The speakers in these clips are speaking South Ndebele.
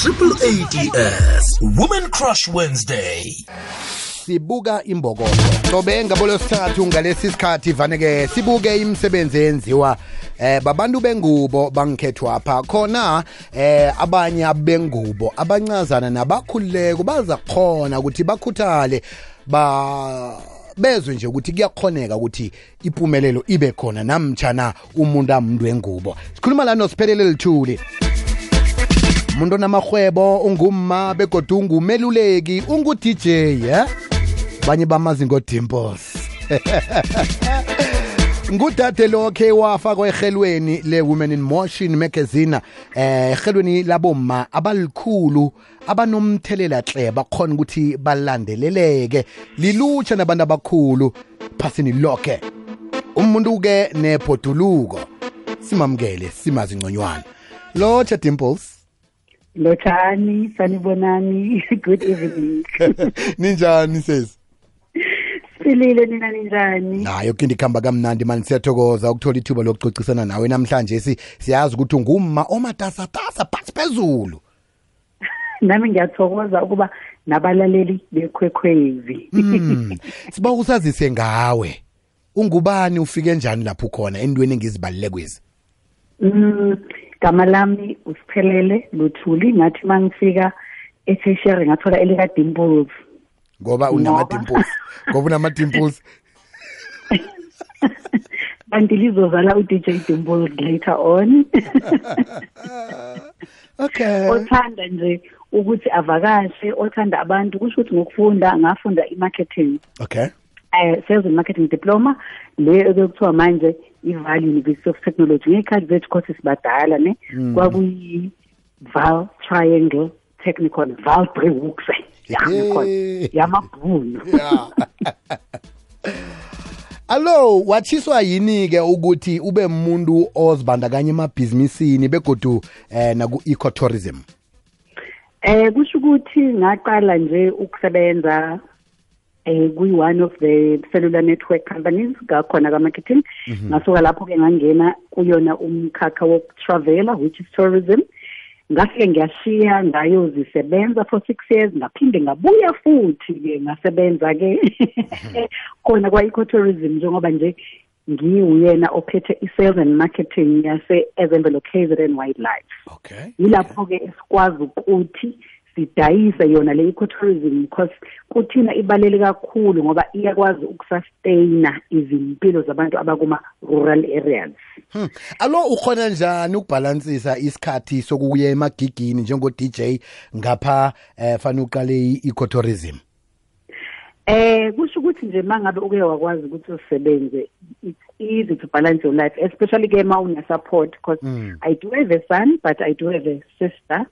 Triple ADS Women Crush Wednesday. Sibuka imbokodo sobe ngabolo sithathu ngalesi sikhathi vaneke sibuke imisebenzi enziwa babantu bengubo bangikhethwa apha khona abanye abengubo abancazana nabakhululeko baza khona ukuthi bakhuthale bezwe nje ukuthi kuyakhoneka ukuthi impumelelo ibe khona namtjana umuntu amuntu wengubo. Sikhuluma la noSiphelele Lithuli, umuntu onamahwebo, ungumma begodu ungumeluleki, ungu-DJ banye bamazi ngo-Dimples. Ngudade lokhe wafakwa ehelweni le-Women in Motion magazine, ehelweni labomma abalikhulu abanomthelela hle bakhona ukuthi balandeleleke lilutsha nabantu abakhulu phasini lonke. Umuntu-ke nebhoduluko simamukele simazi ngconywana. Lotsha Dimples. Lotshani, sanibonani, good evening. Ninjani sesi? Silile nina ninjani? Nayo kinti khamba kamnandi mani, siyathokoza ukuthola ithuba lokucocisana nawe namhlanje. Siyazi ukuthi ungumma omatasatasa phansi phezulu. Nami ngiyathokoza ukuba nabalaleli beKwekwezi. Siba usazise ngawe. Ungubani, ufike njani lapho khona endweni engizibalile kwezi? Gama lami uSiphelele Luthuli, ngathi mangifika eThekwini ngathola elika Dimples. Ngoba unama-dimples. Ngoba unama-dimples. Kanti lizozala uDJ Dimples later on. Okay. Othanda nje ukuthi avakashe, othanda abantu, kusho ukuthi ngokufunda ngafunda i-marketing. Okay. Sales and marketing diploma le ekuthiwa manje iVaal University of Technology. Ngekhathi zethu courses badala ne kwakuyi Vaal Triangle Technical, Vaal Brewux. Yamabhunu. Allo, wathiswa yini ke ukuthi ube umuntu ozibandakanya emabhizinisini begodu naku-ecotourism? Kusho ukuthi ngaqala nje ukusebenza one of the cellular network companies ngakhona ka-marketing. Ngasuka lapho ke ngangena kuyona umkhakha wokutravela, which is tourism. Ngafike ngiyashiya ngayozisebenza for 6 years, ngaphinde ngabuya futhi ke ngasebenza ke khona kwa-ecotourism, njengoba nje ngiyena ophethe i-sales and marketing yase-Ezemvelo KZN Wildlife. Okay. Yilapho ke esikwazi ukuthi sidayise yona le ecotourism, because kuthina ibalele kakhulu ngoba iyakwazi ukusustaina izimpilo zabantu abakuma rural areas. Allo, ukhona njani ukubalansisa isikhathi sokuya emagigini njengo DJ ngapha fana uqale i-ecotourism? Kusho ukuthi nje mangabe uke wakwazi ukuthi usebenze, it's easy to balance your life, especially ke ma una support, because I do have a son but I do have a sister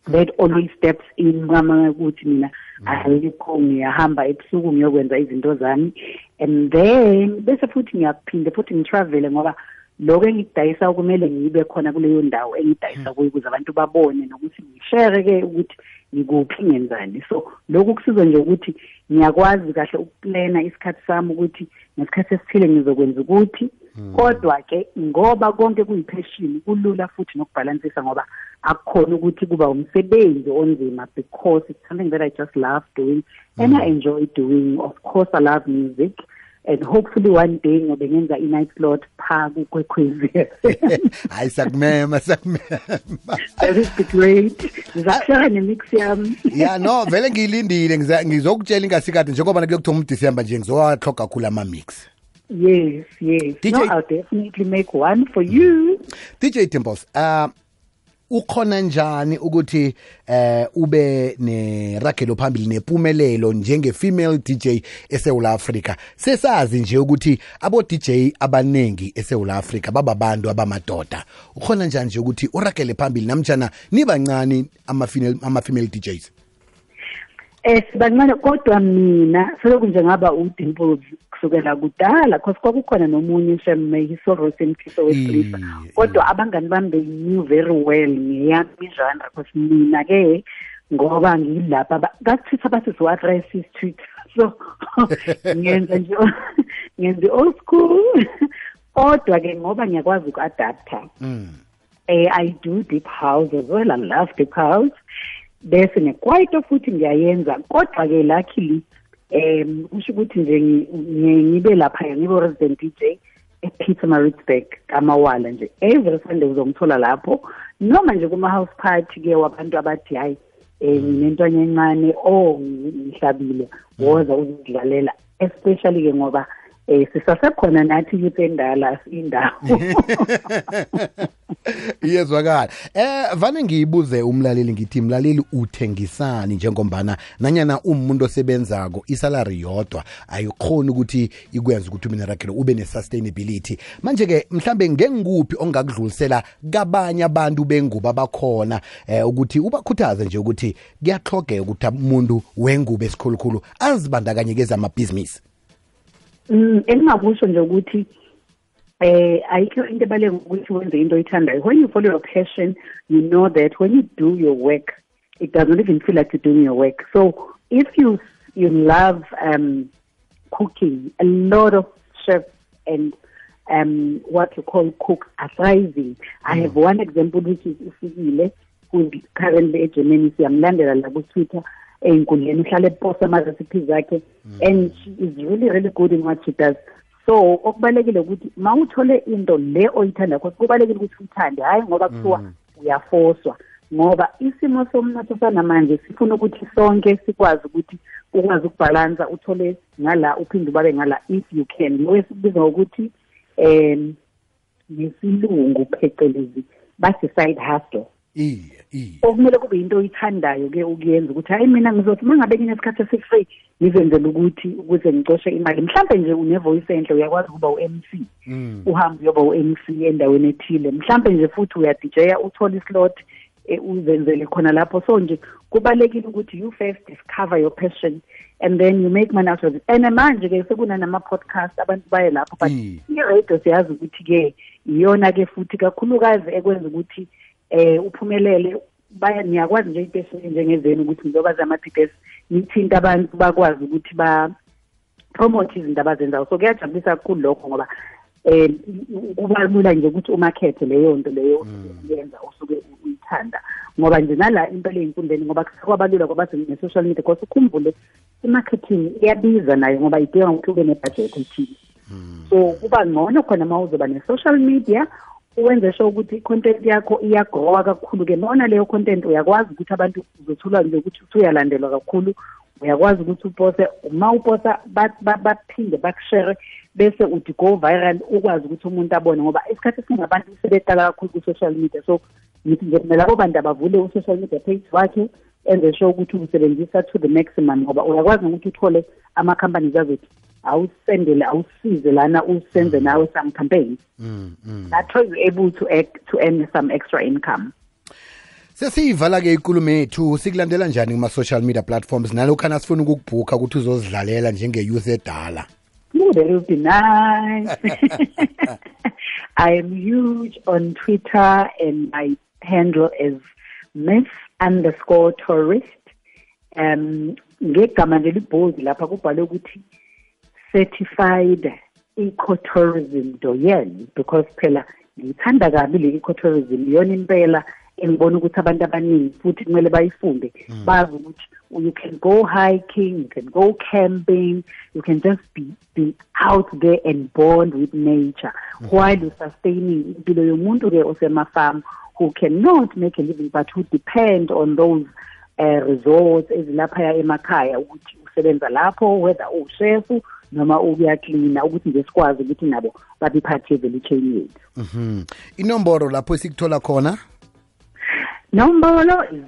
that always steps in mama ukuthi mina ayikho ngiyahamba ebusuku ngiyokwenza izinto zami, and then bese futhi ngiyaphinde futhi ngitravel ngoba lokho engidayisa kumele ngibe khona kuleyo ndawo engidayisa kuyo ukuze abantu babone nokuthi ngishare ke ukuthi ngikuphi ngenzani. So lokho kusiza nje ukuthi ngiyakwazi kahle ukuplana isikhathi sami ukuthi ngesikhathi esithile ngizokwenza ukuthi, kodwa ke ngoba konke kuyipassion kulula futhi nokubalansisa ngoba akukhona ukuthi kuba umsebenzi onzima, because it's something that I just love doing and I enjoy doing. Of course I love music, and hopefully one day ngobe ngenza i-night slot pha kuKwekwezi. Hayi sakumema. That is great. Ngizashara nemix yami. Yeah, no, vele ngilindile ngizokutshela ingasikade njengoba kuyokuthola uDecember nje ngizowahloga kakhulu ama-mix. Yes. DJ, no, I'll definitely make one for you. DJ Dimples, ukhona njani ukuthi ube neragelo phambili nempumelelo njenge-female DJ eSouth Africa? Sesazi nje ukuthi abo DJ abanengi eSouth Africa bababantu abamadoda. Ukhona njani nje ukuthi uragele phambili namtjana nibancane ama-female DJs? Sibancane, kodwa mina selokhu nje ngaba uDimples kusukela kudala, because kwakukhona nomunye uShemme Hisorosi Mkhiso wesilisa, kodwa abangani bami they knew very well ngeyami genre, because mina ke ngoba ngilapha kathitha bathi what racist tweet, so ngenza nje old school, kodwa ke ngoba ngiyakwazi uku-adapta I do deep house as well. I love deep house. Bese nekwaito futhi ngiyayenza kodwa-ke luckily kusho ukuthi nje ngibe lapha ngibe resident DJ ePietermaritzburg kamawala nje every Sunday uzongithola lapho noma nje kuma-house party-ke wabantu abathi hayi nginentwana encane ngihlabile woza uzidlalela especially-ke ngoba sisasekhona nathi youth endala indawo iyezwakala vane ngiyibuze umlaleli ngithi mlaleli uthengisani njengombana nanyana umuntu osebenzako isalary yodwa ayikhoni ukuthi ikwenza ukuthi umina rakhelo ube ne-sustainability manje-ke mhlambe ngengikuphi ongakudlulisela kabanye abantu bengubo abakhona ukuthi ubakhuthaze nje ukuthi kuyahlogeka ukuthi umuntu wengubo esikhulukhulu azibandakanye kezamabhizinisi. Engingakusho nje ukuthi ayikho into ebalulekile ukuthi wenze into oyithandayo. When you follow your passion, you know that when you do your work, it doesn't even feel like you're doing your work. So if you love cooking, a lot of chefs and what you call cooks are thriving. I have one example which is Ufikile, who is currently at Germany. Siyamlandela la ku Twitter. Ey'nkundleni uhlale eposta ama-recipes zakhe and she is really good in what she does. So okubalekile ukuthi ma uthole into le oyithanda because kubalekile ukuthi uyithande hayi ngoba kuthiwa uyafoswa ngoba isimo somnotho sanamanje sifuna ukuthi sonke sikwazi ukuthi ukwazi ukubhalansa uthole ngala uphinde ubabe ngala if you can. Lo esikubiza ngokuthi ngesilungu phecelezi bathi side hustle. Okumele kube into oyithandayo-ke ukuyenza ukuthi hayi mina ngizothi uma ngabe nginesikhathi esi-free ngizenzela ukuthi ukuze ngicoshe imali mhlawumbe nje une-voice enhle uyakwazi ukuba u-MC uhambe uyoba u-MC endaweni ethile mhlawumbe nje futhi uyadijeya uthole islot uzenzele khona lapho. So nje kubalekile ukuthi you first discover your passion and then you make money out of it. And manje-ke sekunanama-podcast abantu baye lapho but i-radio siyazi ukuthi-ke iyona-ke futhi kakhulukazi ekwenza ukuthi uphumelele niyakwazi nje impesheni njengezenu ukuthi njengoba zama-PPS nithinta abantu bakwazi ukuthi ba-promote izinto abazenzayo. So kuyajabulisa kakhulu lokho ngoba kuba lula nje ukuthi umakhethe leyo nto leyo yenza usuke uyithanda ngoba nje nala impela ey'nkundleni ngoba kwabalula ngoba ne-social media because ukhumbule i-marketing iyabiza nayo ngoba idinga ukuthi ube ne-budget ethile. So kuba ngcono khona ma uzoba ne-social media uwenze sho ukuthi i-content yakho iyagrowa kakhulu-ke nona leyo content uyakwazi ukuthi abantu uzothola nje ukuthi uyalandelwa kakhulu uyakwazi ukuthi upose uma uposa baphinde bakushere bese uthi go viral ukwazi ukuthi umuntu abone ngoba isikhathi esiningi abantu sebeqala kakhulu ku-social media. So ngithi nje kumele abo bantu abavule u-social media page wakhe enze sho ukuthi usebenzisa to the maximum ngoba uyakwazi nokuthi uthole ama-companies azothi awusendele awusize lana usenze nawe some campaigns that way you're able to earn some extra income. Sesiyivala-ke ikulumo yethu sikulandela njani kuma-social media platforms nalokhana sifuna ukukubhukha ukuthi uzozidlalela njenge-youth edala? That would be nice. I am huge on Twitter and my handle is Miss_tourist. Ngegama nje libhold lapha kubhalwe ukuthi certified ecotourism doyen because phela ngithanda kabi le ecotourism iyona impela engibona ukuthi abantu abaningi futhi kumele bayifunde bazi ukuthi you can go hiking, you can go camping, you can just be out there and bond with nature while you're sustaining impilo yomuntu-ke osemafarm who cannot make a living but who depend on those resorts ezilaphaya emakhaya ukuthi usebenza lapho whether ushefu noma ukuyaklina ukuthi nje sikwazi ukuthi nabo babe part ye-value chain yethu. Inomboro lapho esikuthola khona? Nombolo is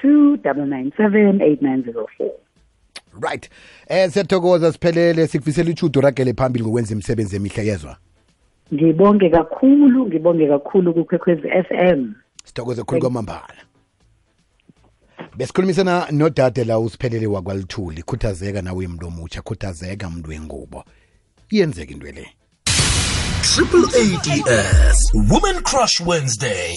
082-997-8904. Right. Siyathokoza siphelele sikufisela ichudo ragele phambili ngokwenza imisebenzi emihle yezwa. Ngibonge kakhulu kuKwekwezi FM. Sithokoze kakhulu kwamambala. Besikhulumisana nodade la usiphelele wakwaLithuli khuthazeka nawe umuntu omutsha khuthazeka umuntu wengubo iyenzeka into le. Triple ADS Women Crush Wednesday.